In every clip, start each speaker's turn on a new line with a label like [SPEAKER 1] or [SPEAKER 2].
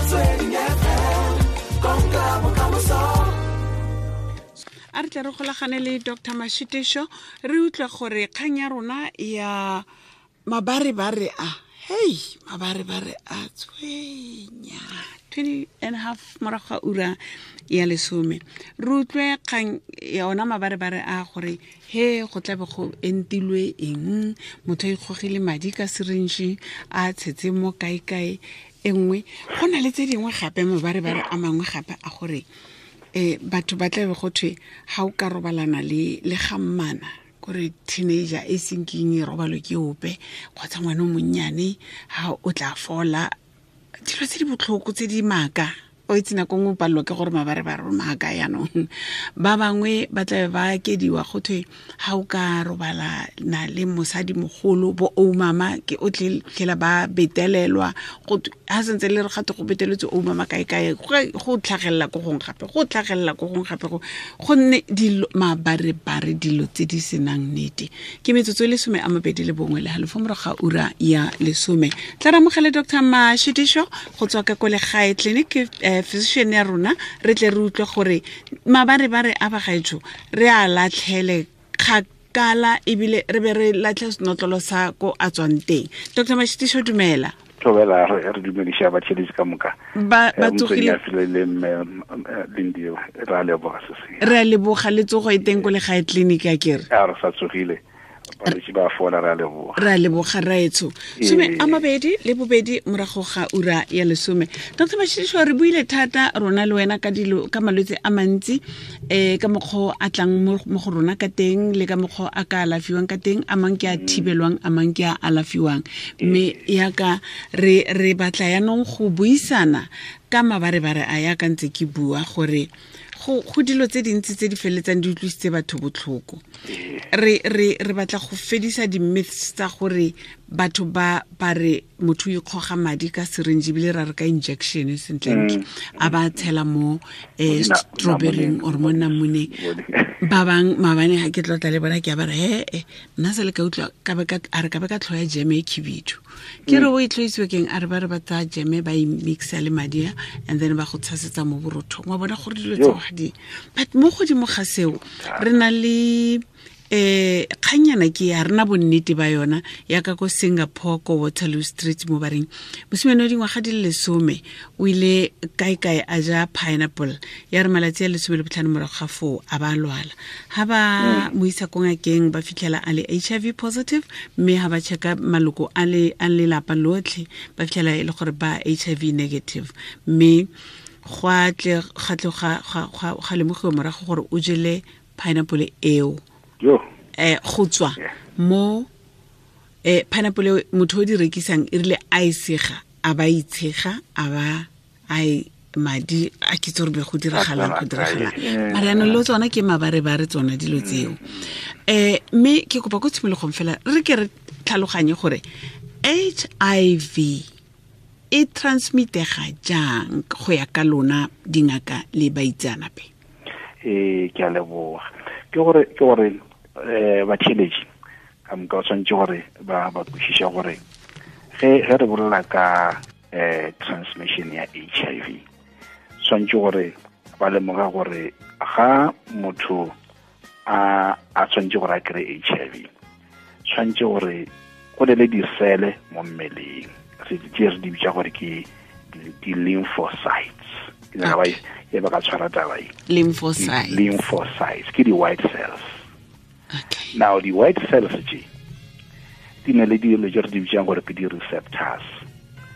[SPEAKER 1] Motsweding FM, konka bokamoso.
[SPEAKER 2] A re tle re golagane le Dr Mashitišo, re utlwe gore kgang ya rona ya mabarebare a, hei, mabarebare a tshwenya 20 and a half morago ga ura ya 10. Re utlwe kgang ya ona mabarebare a, gore he go tlabe go entilwe eng, motho a ikgogile madi ka syringe a tshetse mo kae-kae e nngwe. Go na le tse dingwe gape, mabarebare a mangwe gape a gore batho ba tlabe go thwe ga o ka robalana le gammana, kore teenager e seng keng e robalwe ke ope, kgotsa ngwana o monnyane, ga o tla fola. Dilo tse di botlhoko tse di maaka, o itse nako nngwe o palelwa ke gore mabarebare o maaka. Yaanong ba bangwe ba tlabe ba kediwa, go thwe ga o ka robala na le mosadi mogolo, bo oumama, ke o tlhela ba betelelwa. Ga sentse le re gate go beteletswe oumama kae-kae, go tlhagelela ko gong gape, go tlhagelela ko gong gape, gonne dilo mabarebare, dilo tse di senang nnete. Ke metsotso e le 21 le halofo morago ga ura ya 10. Tla re amogele Dr Mashitišo go tswa ka ko Legae Clinic, physician ya rona, re tle re utlwe gore mabarebare a bagaetsho re a latlhele kgakala, ebile re be re latlhe senotlolo sa ko a tswang teng. Dr Mashitišo, dumela.
[SPEAKER 3] Thobela, re dumediša batheletši ka moka.
[SPEAKER 2] Ba tsogile?
[SPEAKER 3] Motswedi le mme Lindy, re a leboga se se.
[SPEAKER 2] Re a leboga, le tsogo e teng ko Legae Clinic ya kere?
[SPEAKER 3] A re sa tsogile, balwetse ba fola, re a leboga.
[SPEAKER 2] Re a leboga, raetsho. 22 morago ga ura ya 10. Dr Mashitišo, re buile thata rona le wena ka dilo, ka malwetse a mantsi, ka mokgwa a tlang mo go rona ka teng, le ka mokgwa a ka alafiwang ka teng, a mang ke a thibelwang, a mang ke a alafiwang. Mme yaka re batla yaanong go buisana ka mabarebare a, yaka ntse ke bua gore go dilo tse dintsi tse di feleletsang di utlwisitse batho botlhoko. Re batla go fedisa di-myths tsa gore batho ba re motho o ikgoga madi ka syringe, ebile ra re ka injection sentlentle, a ba tshela mo strawberryng or mo namoneng. Ba bang maabane ga ke tlotla le bona, ke a ba re, he nna se le ka utlwa a re ka be ka tlhoya jeme e khibidu. Ke re o e tlhoisiwe keng? A re ba re ba tsaya jeme, ba e mixa le madi a, and then ba go tshasetsa mo borothong. Wa bona gore dilo tseo ga di. But mo godimo ga seo, re na le kgannyana ke ya rena bonnete ba yona ya ka ko Singapore, ko Waterloo Street, mo bareng mosimane wa dingwaga di le 10 o ile kae-kae a ja pineapple, ya re malatsi a 15 morago ga foo a ba lwala. Ha ba mo isa ko ngakeng, ba fitlhela a le HIV positive, mme ha ba checka maloko a le a lelapa lotlhe, ba fitlhela e le gore ba HIV negative. Mme gwa tle ga tle ga lemogiwa morago gore o jele pineapple eo go tswa mo pineapple eo motho o di rekisang, e rile a e sega, a ba itshega, a ba a e madi a ke tse gore be go diragalang, go diragalang. Mara yaanong le tsona ke mabarebare tsona dilo tseo. Mme ke kopa ko tshimologong fela re ke re tlhaloganye gore HIV e transmitega jang go ya ka lona dingaka le baitseanape.
[SPEAKER 3] Ke a leboga. Ke gore batheletši ka moka o tshwanetse gore ba kwešiše gore ge re bolela ka transmission ya HIV, tshwanetse gore ba lemoga gore ga motho a tshwanetse gore a kry HIV, tshwanetse gore go ne le disele mo mmeleng tse re di bitsa gore ke di-lymphocytes. Ke nyaka e ba ka tshwara taba e.
[SPEAKER 2] Lymphocytes.
[SPEAKER 3] Lymphocytes ke di-white cells. Now di-white cells tše di na le dilo tse re di bitsang gore ke di-receptors,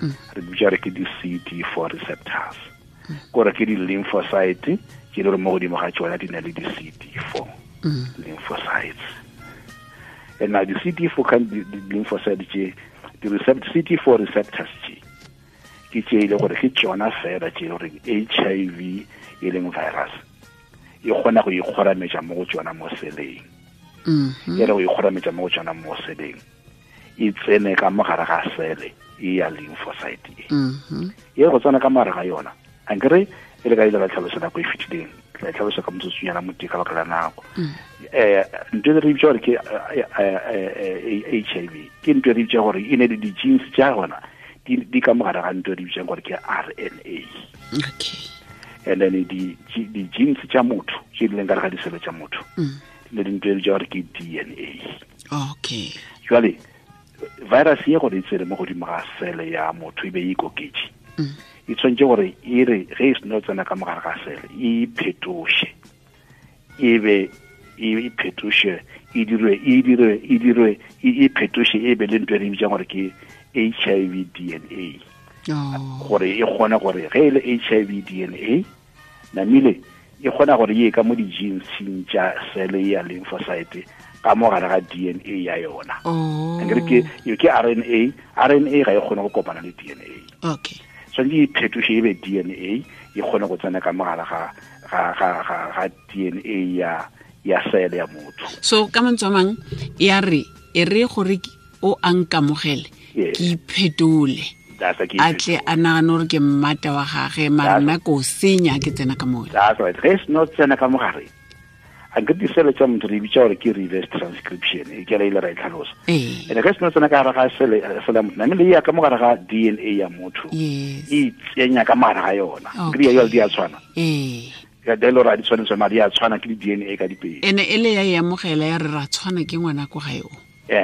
[SPEAKER 3] re di bitsa gore ke di-CD4 receptors, kore ke di-lymphocyte tse le gore mo godimo ga tsona di na le di-CD4 lymphocytes. And now di-CD4 kan di-lymphocyte tše, di-CD4 receptors tše, ke tše e le gore ke tsona fela tše e le gore HIV e leng virus e kgona go ikgorametša mo go tsona mo seleng. E re go ikgorametša mo go tsona mo seleng, e tsene ka mogare ga sele e ya lymphocyte e. E re go tsena ka mogare ga yona, ankere e le ka ile ka tlhalosa nako e fetileng, tla e tlhalosa ka motsotsonyana motee ka baka la nako. Ntho e re bitsa gore ke HIV, ke ntho e re bitsa gore e ne le di-genes tša gona. Di ka mogare ga ntho di bitsang gore ke RNA.
[SPEAKER 2] Okay.
[SPEAKER 3] And then di genes tša motho tše di leng ka gare ga disele tša motho di ne di ntho e bitsa gore ke DNA.
[SPEAKER 2] Okay.
[SPEAKER 3] Jwale virus ye gore e tsene mo godimo ga sele ya motho e be e ikoketše, e tshwanetse gore e re ge e seno tsena ka mogare ga sele e iphetoše, e be e phetoše, e dirwe e phetoše e be le ntho e re bitsang gore ke HIV DNA. Gore e kgone gore ge e le HIV DNA namile e kgona gore ye ka mo di-geneseng tša sele ya lymphocyte ka mo gare ga DNA ya yona. Akere ke RNA, RNA ga e kgone go kopana le DNA.
[SPEAKER 2] Okay.
[SPEAKER 3] Tshwanetse e phetoše e be DNA e kgone go tsena ka mo gare ga DNA ya sele ya motho.
[SPEAKER 2] So ka mantswe a mang ya re e re gore o a nkamogele ke iphetole, a tle a nagane gore ke mmata wa gage, mara nna ko senya ke tsena ka mola.
[SPEAKER 3] That's right. Ge se no tsena ka mogare, a nke disele tša motho re bitša gore ke reverse transcription, e ke re ile ra e tlhalosa. And ge se no tsena ka gare ga sele ya motho, namile e ya ka mogare ga DNA ya motho, e tsenya ka mogare ga yona. Ke di ya di a tshwana. Ka delo ra di tshwanetse madi a tshwana ke di DNA ka dipedi.
[SPEAKER 2] Ene e le ya e amogela ya re ra tshwana ke ngwana ko gae o.
[SPEAKER 3] Re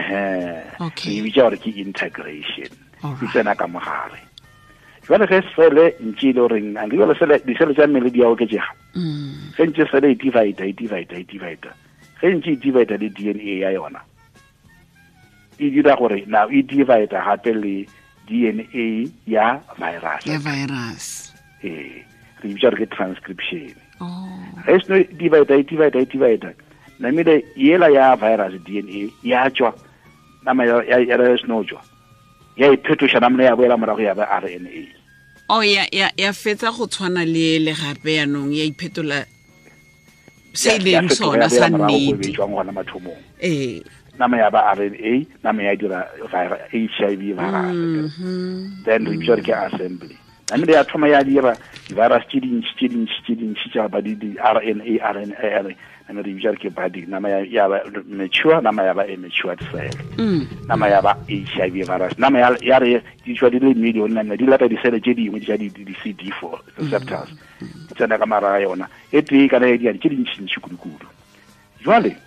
[SPEAKER 3] bitša gore ke integration. E tsena ka mogare. Jwale ge sele ntše e le goreng a jwale sele disele tša mmele di a oketšega. Ge ntše sele e divide, ge ntše e divide le DNA ya yona, e dira gore now e divide gape le DNA ya virus.
[SPEAKER 2] Ya virus.
[SPEAKER 3] Re bitša gore ke transcription. Ge seno divide, namile yela ya virus DNA ya tšwa, nama ya seno tšwa, ya iphetoša namile ya boela morago ya ba RNA.
[SPEAKER 2] Oh, ya fetsa go tshwana le le gape yanong ya iphetola se leng sona sa nnete.
[SPEAKER 3] Nama ya ba RNA, nama ya dira HIV virus. Then re bitša gore ke assembly. Namile ya thoma ya dira virus tše dintši tša ba di RNA, nama re bitša gore ke budding, nama ya ba mature, nama ya ba immature cell. Nama ya ba HIV virus, nama ya re di tšwa di le million, nama di lata disele tše dingwe tša di CD4 receptors. Di tsena ka mara ga yona e tee kana ya di tše dintšintši kudu-kudu. Jwale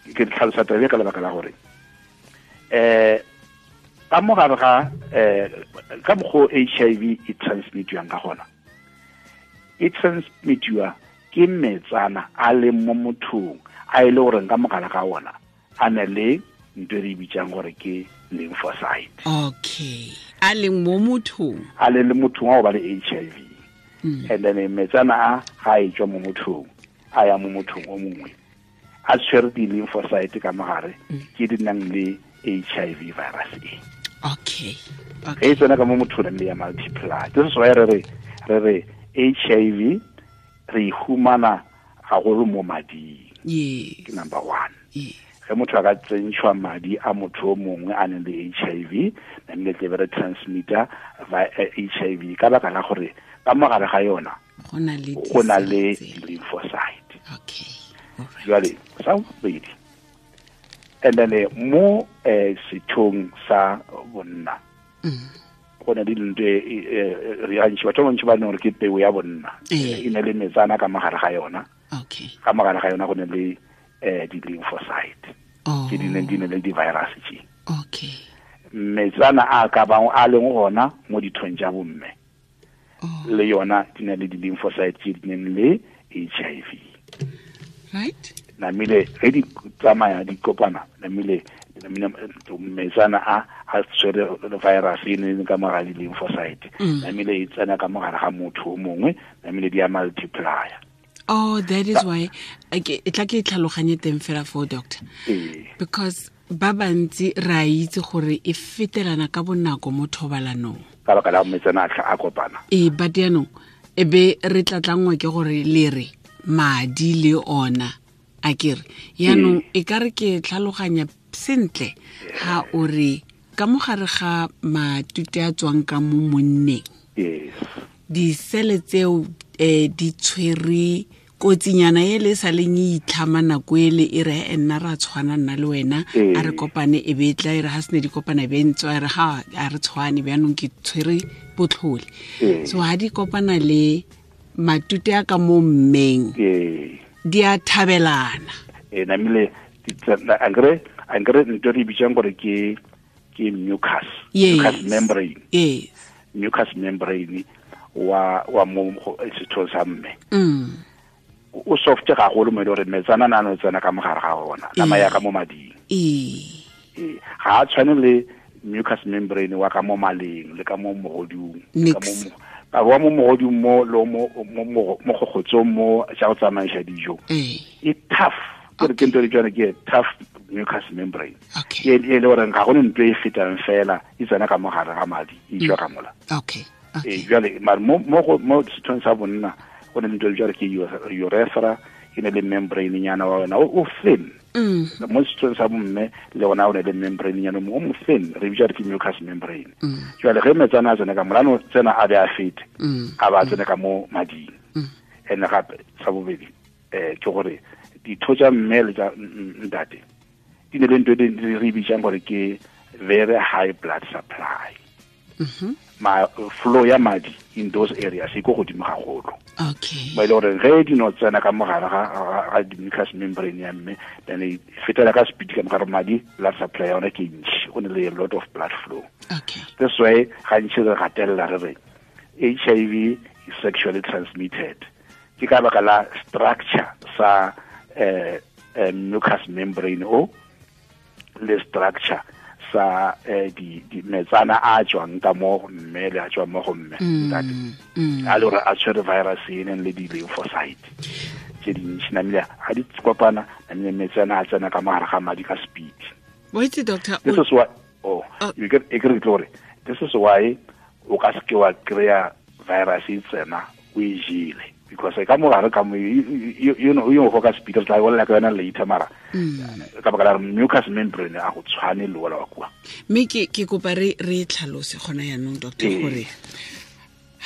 [SPEAKER 3] ke tlhalosa taba ka lebaka la gore ka mogare ga ka mokgwa HIV e transmitiwang ka gona, e transmitiwa ke metsana a leng mo mothong a e le goreng ka mogare ga ona a na le ntho e re bitsang gore ke lymphocyte.
[SPEAKER 2] Okay, a leng mo mothong,
[SPEAKER 3] a le mothong wa go ba le HIV. And then metsana a ga e tswa mo mothong a ya mo mothong o mongwe a tshwere di-lymphocyte ka mogare ke di nang le HIV virus e.
[SPEAKER 2] Okay.
[SPEAKER 3] Ge e tsena ka mo mothong le ya multiply. This is why re re HIV re humana haholo mo mading.
[SPEAKER 2] Yes.
[SPEAKER 3] Ke number 1.
[SPEAKER 2] Yes.
[SPEAKER 3] Ge motho a ka tsentšhwa madi a motho o mongwe a neng le HIV, namile tle be re transmitter HIV ka baka la gore ka mogare ga yona go na le lymphocyte.
[SPEAKER 2] Okay.
[SPEAKER 3] Jwale sa bobedi, and then mo sethong sa bonna go na le dintho re gantši batho ba bantši ba neng gore ke peo ya bonna e ne le metsana ka mogare ga yona.
[SPEAKER 2] Okay.
[SPEAKER 3] Ka mogare ga yona go ne le di-lymphocyte tse di neng di ne le di-virus tše.
[SPEAKER 2] Okay.
[SPEAKER 3] Metsana a ka bang a leng gona mo dithong tša bomme le yona di na le di-lymphocyte tse di neng le HIV.
[SPEAKER 2] Right.
[SPEAKER 3] Namile ge di tsamaya di kopana, namile metsana a tshwere virus e neng ka mogare di-lymphocyte, namile e tsena ka mogare ga motho o mongwe, namile di a multiplier.
[SPEAKER 2] Oh, that is why e tla ke tlhaloganye teng fela for doctor. Because ba bantsi ra itse gore e fetelana ka bonako mo thobalanong.
[SPEAKER 3] Ka baka la metsana a kopana.
[SPEAKER 2] But yaanong e be re tlatlangwa ke gore le re madi le ona a kere yaanong e ka re ke tlhaloganya sentle ha o re ka mogare ga matute a tswang ka mo monneng.
[SPEAKER 3] Yes.
[SPEAKER 2] Disele tseo di tshwere Kotsinyana e le sa leng e itlhama nako ele e re nna ra tshwana nna le wena a re kopane e be tla e re ha sene di kopana be ntse a re ha a re tshwane bjanong ke tshwere botlhole. So ha di kopana le matute a ka mo mmeng di a thabelana.
[SPEAKER 3] Namile angre ntho re bitsang gore ke mucus membrane.
[SPEAKER 2] Yes.
[SPEAKER 3] Mucus membrane wa mo sethong sa mme. O soft ga go le mo le gore metsana na no tsena ka mogare ga ona nama ya ka mo mading. Ga a tshwane le mucus membrane wa ka mo maleng le ka mo mogodung ka mo ka wa mo mogodung mo lo mo mo gogotsong mo tsa go tsamaisa dijo. E tough ke ke ntho e tswana ke tough mucus membrane. E le gore ga go ntho e fetang fela e tsena ka mogare ga madi e tswa ka mola.
[SPEAKER 2] Okay.
[SPEAKER 3] Jwale mara mo mo sethong sa bonna go ne ntho jare ke urethra e ne le membrane nyana wa wena o thin. Mo sethong sa bomme le ona o ne le membrane nyana mo mo thin re bitsa ke mucus membrane. Jwale ge metsana a tsena ka molano tsena a be a fete a ba tsena ka mo mading. Ene gape sa bobedi ke gore ditho tsa mme le tsa ntate di ne le ntho e re bitsang gore ke very high blood supply. Ma flow ya madi in those areas e go godimo gagolo.
[SPEAKER 2] Okay.
[SPEAKER 3] Ba ile gore ge di no tsena ka mogare ga di mucus membrane ya mme then e fetela ka speed ka mogare madi blood supply ya ona ke ntši, go ne le a lot of blood flow.
[SPEAKER 2] Okay.
[SPEAKER 3] That's why gantši re gatelela re re HIV is sexually transmitted. Ke ka baka la structure sa mucus membrane o le structure sa di metsana a tswang ka mo mme le a tswang mo go mme ntate a le gore a tshwere virus e neng le di-lymphocyte tse dintši namile ga di kopana namile metsana a tsena ka mogare ga madi ka speed.
[SPEAKER 2] Wait, doctor,
[SPEAKER 3] this is why you get e kry gore this is why o ka seke wa kry-a virus e tsena o e jele because ka mogare ka mo you know you go ka speed re tla bolela ka yona later mara ka baka la mucus membrane a go tshwane le wala wa kwa.
[SPEAKER 2] Mme ke kopa re tlhalose gona yanong doctor gore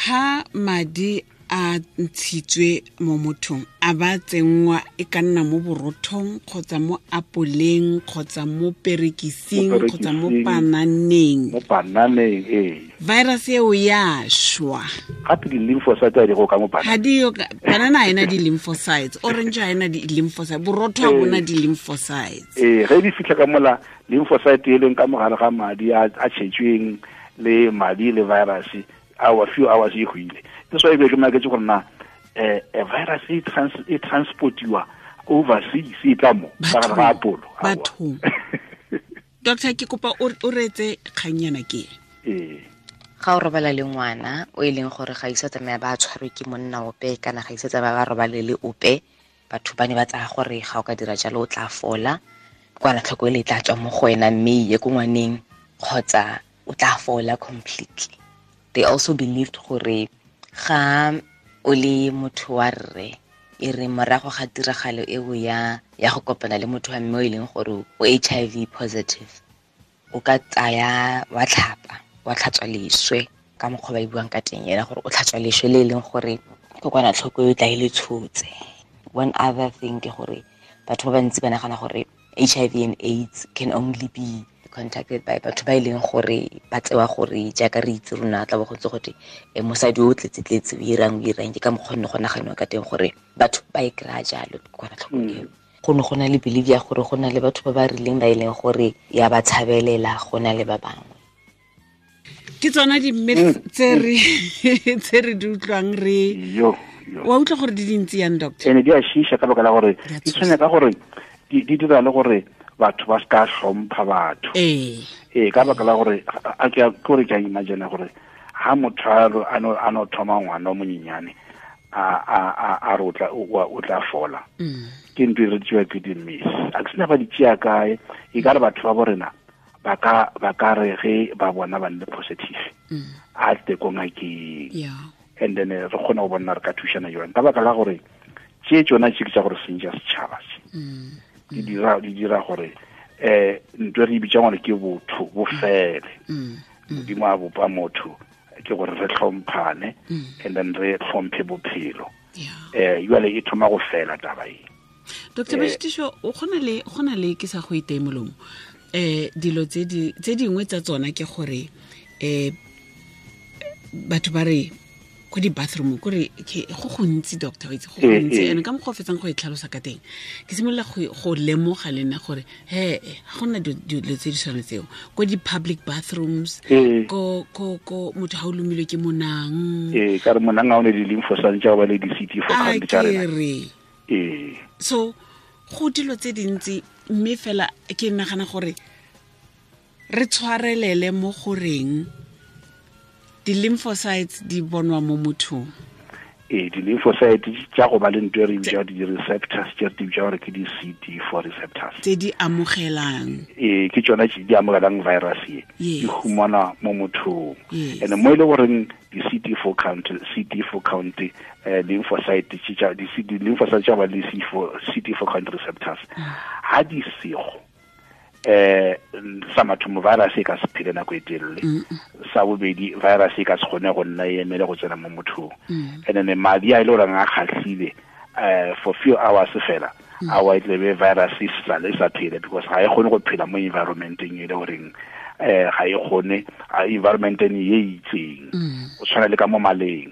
[SPEAKER 2] ha madi a ntshitswe mo mothong a ba tsenngwa e ka nna mo borothong kgotsa mo apoleng kgotsa mo perekising kgotsa mo pananeng.
[SPEAKER 3] Mo pananeng ee.
[SPEAKER 2] Virus eo ya shwa.
[SPEAKER 3] Gape di-lymphocytes di go ka mo banana.
[SPEAKER 2] Ha di yo banana ha ena di-lymphocytes, orange ha ena di-lymphocytes, borotho ha bona di-lymphocytes.
[SPEAKER 3] Ge di fitlha ka mola lymphocyte e leng ka mogare ga madi a tšhetsweng le madi le virus our few hours e hwile. That's why ke maketse gore na virus e transportiwa overseas e tla mo ka gare ga apolo.
[SPEAKER 2] Bathong. Doctor ke kopa o retse kganyana ke.
[SPEAKER 4] Ga o robala le ngwana o e leng gore ga isa tsamaya ba tshwarwe ke monna ope kana ga isa tsamaya ba robale le ope, batho ba ne ba tsaya gore ga o ka dira jalo o tla fola kwana tlhoko e le tla tswa mo go wena mme ye ko ngwaneng kgotsa o tla fola completely. They also believed gore ga o le motho wa rre e re morago ga tiragalo eo ya go kopana le motho wa mme o e leng gore o HIV positive o ka tsaya wa tlhapa wa tlhatswa leswe ka mokgwa ba e buang ka teng ena gore o tlhatswa leswe le e leng gore kokwanatlhoko e tla e le tshotse. One other thing ke gore batho ba bantsi ba nagana gore HIV and AIDS can only be contacted by batho ba e leng gore ba tsewa gore jaaka re itse rona tla bo go ntse gote mosadi o tletse-tletse o irang ke ka mokgwa nne go naganiwa ka teng gore batho ba e kry-a jalo kokwanatlhoko eo. Go ne go na le belief ya gore go na le batho ba ba rileng ba e leng gore ya ba tshabelela go na le ba bangwe.
[SPEAKER 2] Ke tsona di-myths tse re di utlwang re wa utlwa gore di dintsi yang doctor.
[SPEAKER 3] Ene di a shisha ka baka la gore di tshwenya ka gore di dira le gore batho ba ska hlompha batho. Ka baka la gore a ke gore ke a imagine gore ha motho a no thoma ngwana o monyenyane a re o tla fola. Ke ntho e re tsewa ke di-myths. A ke sena ba di tšea kae e ka re batho ba bo rena ba ka re ge ba bona ba nne positive a tle ko ngakeng. And then re kgona go bona re ka thušana jwang ka baka la gore tše tsona tše ke tša gore sentša setšhaba se. Di dira gore ntho re bitsa gore ke botho bo fele. Modimo a bopa motho ke gore re hlomphane and then re hlomphe bophelo. Jale e thoma go fela taba e.
[SPEAKER 2] Dr. Mashitiso, o gona le ke sa go iteye molomo. Dilo tse dingwe tsa tsona ke gore batho ba re ko di-bathroom kore go gontsi doctor o itse go gontsi and ka mokgwa o fetsang go e tlhalosa ka teng ke simolola go lemoga le nna gore he ga gona dilo tse di tshwana tseo ko di-public bathrooms ko motho ga o lomilwe ke monang
[SPEAKER 3] ka re monang ga o ne di-lymphocytes tša go ba le di-CD4 count tša rena
[SPEAKER 2] so go dilo tse dintsi mme fela ke nagana gore re tshwarelele mo goreng di-lymphocytes di bonwa mo mothong.
[SPEAKER 3] Di-lymphocytes tša go ba le ntho e re bitsa di-receptors tše re di bitsa gore ke di-CD4 receptors
[SPEAKER 2] tse di amogelang.
[SPEAKER 3] Ke tšona tse di amogelang virus ye di humanwa mo mothong. And mo e le goreng di-CD4 count, lymphocyte di-lymphocytes tša ba le CD4 count receptors ha di sego sa mathomo virus e ka se phele nako e telele, sa bobedi virus e ka se kgone go nna e emele go tsena mo mothong. And then madi a e le goreng a kgahlile for few hours fela a wa e tlebe virus e sale sa phele because ga e kgone go phela mo environmenteng e le goreng ga e kgone environmenteng e itseng o tshwana le ka mo maleng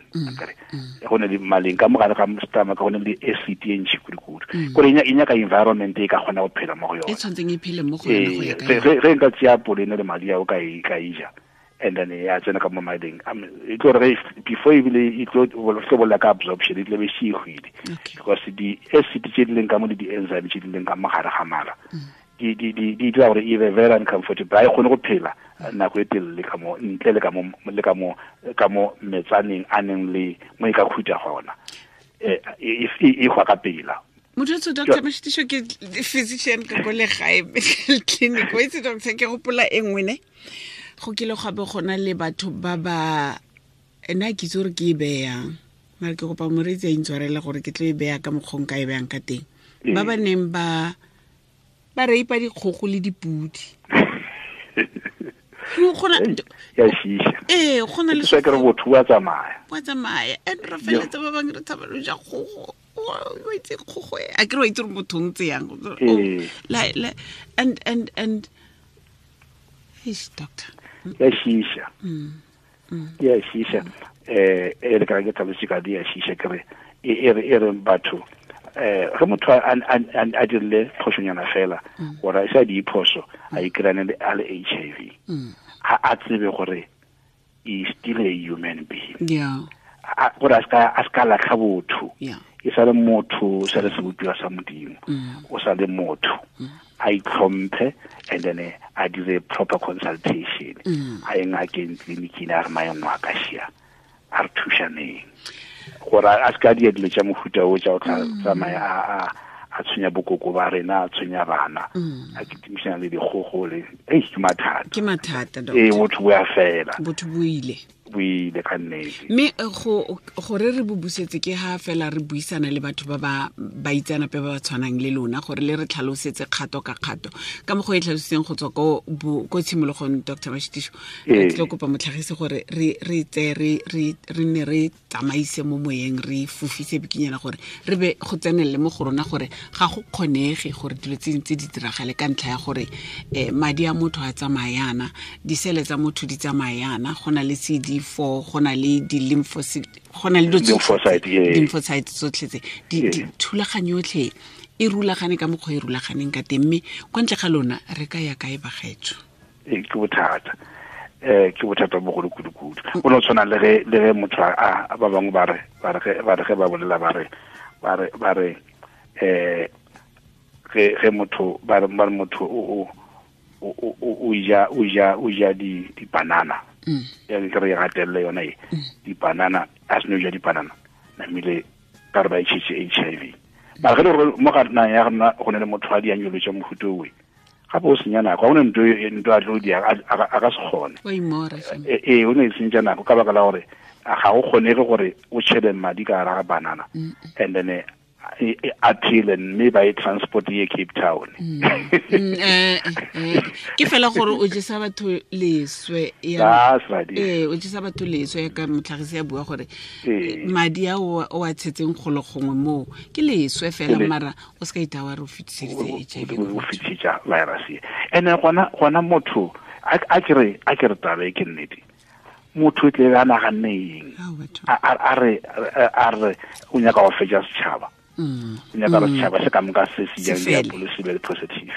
[SPEAKER 3] go ne le maleng ka mo gare ga stomach go ne le acid e ntši kudu-kudu kore e nyaka environment e ka kgona go phela mo go yone
[SPEAKER 2] e tshwantseng e phele mo go yone go ya ka
[SPEAKER 3] ge nka tseya apole ne le madi ao ka e ja and then ya tsena ka mo mading e tlo re before ebile e tlo bolela ka absorption e tlo be se e hwile because di-acid tse di leng ka mo le di-enzyme tse di leng ka mo gare ga mala di dira gore e be very uncomfortable ga e kgone go phela nako e telele ka mo ntle le ka mo metsaneng a neng le mo e ka khutha gona e hwa ka pela.
[SPEAKER 2] Motho Dr. Mashitiso ke physician ka ko legae medical clinic o itse doctor ke gopola e nngwe ne go kile ga be gona le batho ba ba ena ke itse gore ke e beyang mare ke kopa moreetsi a intshwarele gore ke tlo e beya ka mokgong ka e beyang ka teng ba ba neng ba reipa dikgogo le dipudi. Go na le
[SPEAKER 3] se ke re botho wa tsamaya.
[SPEAKER 2] Wa tsamaya and re feletsa ba bangwe re tshaba lo ja kgogo. O itse kgogo a ke re wa itse gore motho ntse yang. And eish doctor.
[SPEAKER 3] Ya shisha. Ya shisha. E le ka ke tlhalose ka di ya shisha ke re e re batho ge motho a dirile phošonyana fela gore a sa di phoso a ikrane a le HIV a tsebe gore is still a human being. Gore a ska latlha botho e sa le motho sa le sebopiwa sa Modimo o sa le motho a itlhomphe and then a dire proper consultation a ye ngakeng tleliniking a re maemo a ka šia a re thušaneng gore a se ka dia dilo tša mohuta o tša go tsamaya a tshwenya bokoko ba rena a tshwenya bana a kitimišana le dikgogo le ke mathata.
[SPEAKER 2] Ke mathata doctor.
[SPEAKER 3] Botho bo ya fela.
[SPEAKER 2] Botho bo ile
[SPEAKER 3] ka nnete.
[SPEAKER 2] Mme gore re bo busetse ke ha fela re buisana le batho ba ba itseanape ba ba tshwanang le lona gore le re tlhalosetse kgato ka kgato ka mokgwa e tlhalositseng go tswa ko tshimologong Dr. Mashitiso re tlo kopa motlhagisi gore re tseye re nne re tsamaise mo moyeng re fofise bikinyana gore re be go tsenelele mo go rona gore ga go kgonege gore dilo tse dintsi di diragale ka ntlha ya gore madi a motho a tsamayana disele tsa motho di tsamayana go na le CD4 go na le di-lymphocyte go na le di-lymphocyte tsotlhe tse thulaganyo yotlhe e rulagane ka mokgwa e rulaganeng ka teng mme kwa ntle ga lona re ka ya kae bagaetsho?
[SPEAKER 3] Ke bothata. Ke bothata bogolo kudu-kudu. Go no tshwana le ge motho a ba bangwe ba re ge ba bolela ba re ge motho ba re motho o ja di-banana ya ke re gatelele yona e di-banana a seno ja di-banana namile ka re ba e tšhetse HIV mara ge le gore mo ga nang ya rena go ne le motho a di anyolo tša mohuta owe gape o senya nako ga o ne ntho a tlo di a ka se kgone o ne e sentša nako ka baka la gore ga go kgonege gore o tšhele madi ka gare ga banana and then appeal mme ba e transport ye Cape Town.
[SPEAKER 2] Ke fela gore o jesa batho leswe ya o jesa batho leswe ka motlhagisi ya bua gore madi a o a tshetseng golo gongwe mo ke leswe fela mara o se ka itawa re o fetiseditse HIV
[SPEAKER 3] o fetisetsa virus ene gona motho a ke re taba e ke nnete motho e tle a naganne eng a re o nyaka go fetsa setšhaba o nyaka gore setšhaba se ka moka se se jang diapolo se be le positive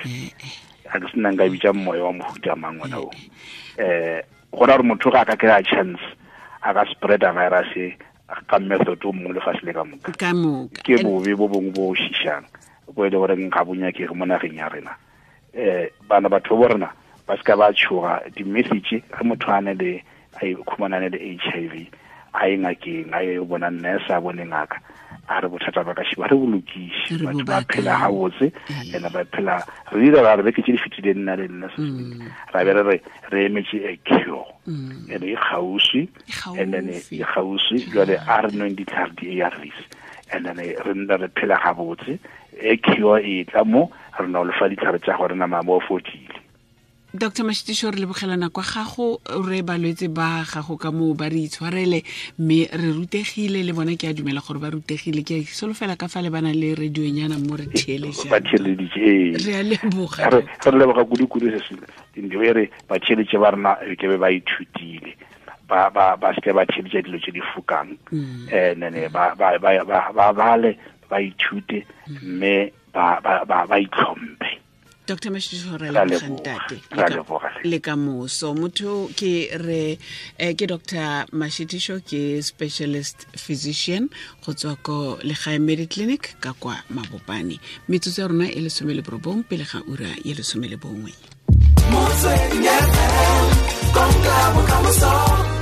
[SPEAKER 3] a ke sena nka bitsa moya wa mohuta mang ona o gona gore motho ga a ka kry-a chance a ka spreada virus ka method o mongwe lefatshe le ka moka ke bobe bo bongwe bo šišang bo e le goreng ga bo nyakege mo nageng ya rena. Bana batho bo rena ba se ka ba tshoga di-message ge motho a ne le a ikhumanane le HIV a ye ngakeng a ye bona nurse a bone ngaka a re bothata ba ka šiba re bolokise batho ba phela gabotse ene ba phela re dira ra re beke tse di fetileng nna le nna ra be re re emetse a cure ene e kgauswi and then e kgauswi jwale a re nweng ditlhare di-ARVs and then re nna re phela gabotse e cure e tla mo re na o lefa ditlhare tsa gore nama mo fodile.
[SPEAKER 2] Dr. Mashitisho re lebogelana kwa gago re balwetse ba gago ka moo ba re itshwarele mme re rutegile le bona ke a dumela gore ba rutegile ke solofela ka fa le bana le radionyana mo re theeletsang ba
[SPEAKER 3] theeleditse
[SPEAKER 2] re a leboga
[SPEAKER 3] re leboga kudu-kudu se se e re ba theeletše ba rena ke be ba ithutile ba ba ba se ba theeletša dilo tse di fokang nene ba ba ba bale ba ithute mme ba ba ba itlhomphe.
[SPEAKER 2] Dr. Mashitisho re leboga ntate le ka moso motho ke re ke Dr. Mashitisho ke specialist physician go tswa ko Legae Mediclinic ka kwa Mabopane. Metsotso ya rona e 19 pele ga ura ya 11.
[SPEAKER 1] Motsweding FM, konka bokamoso.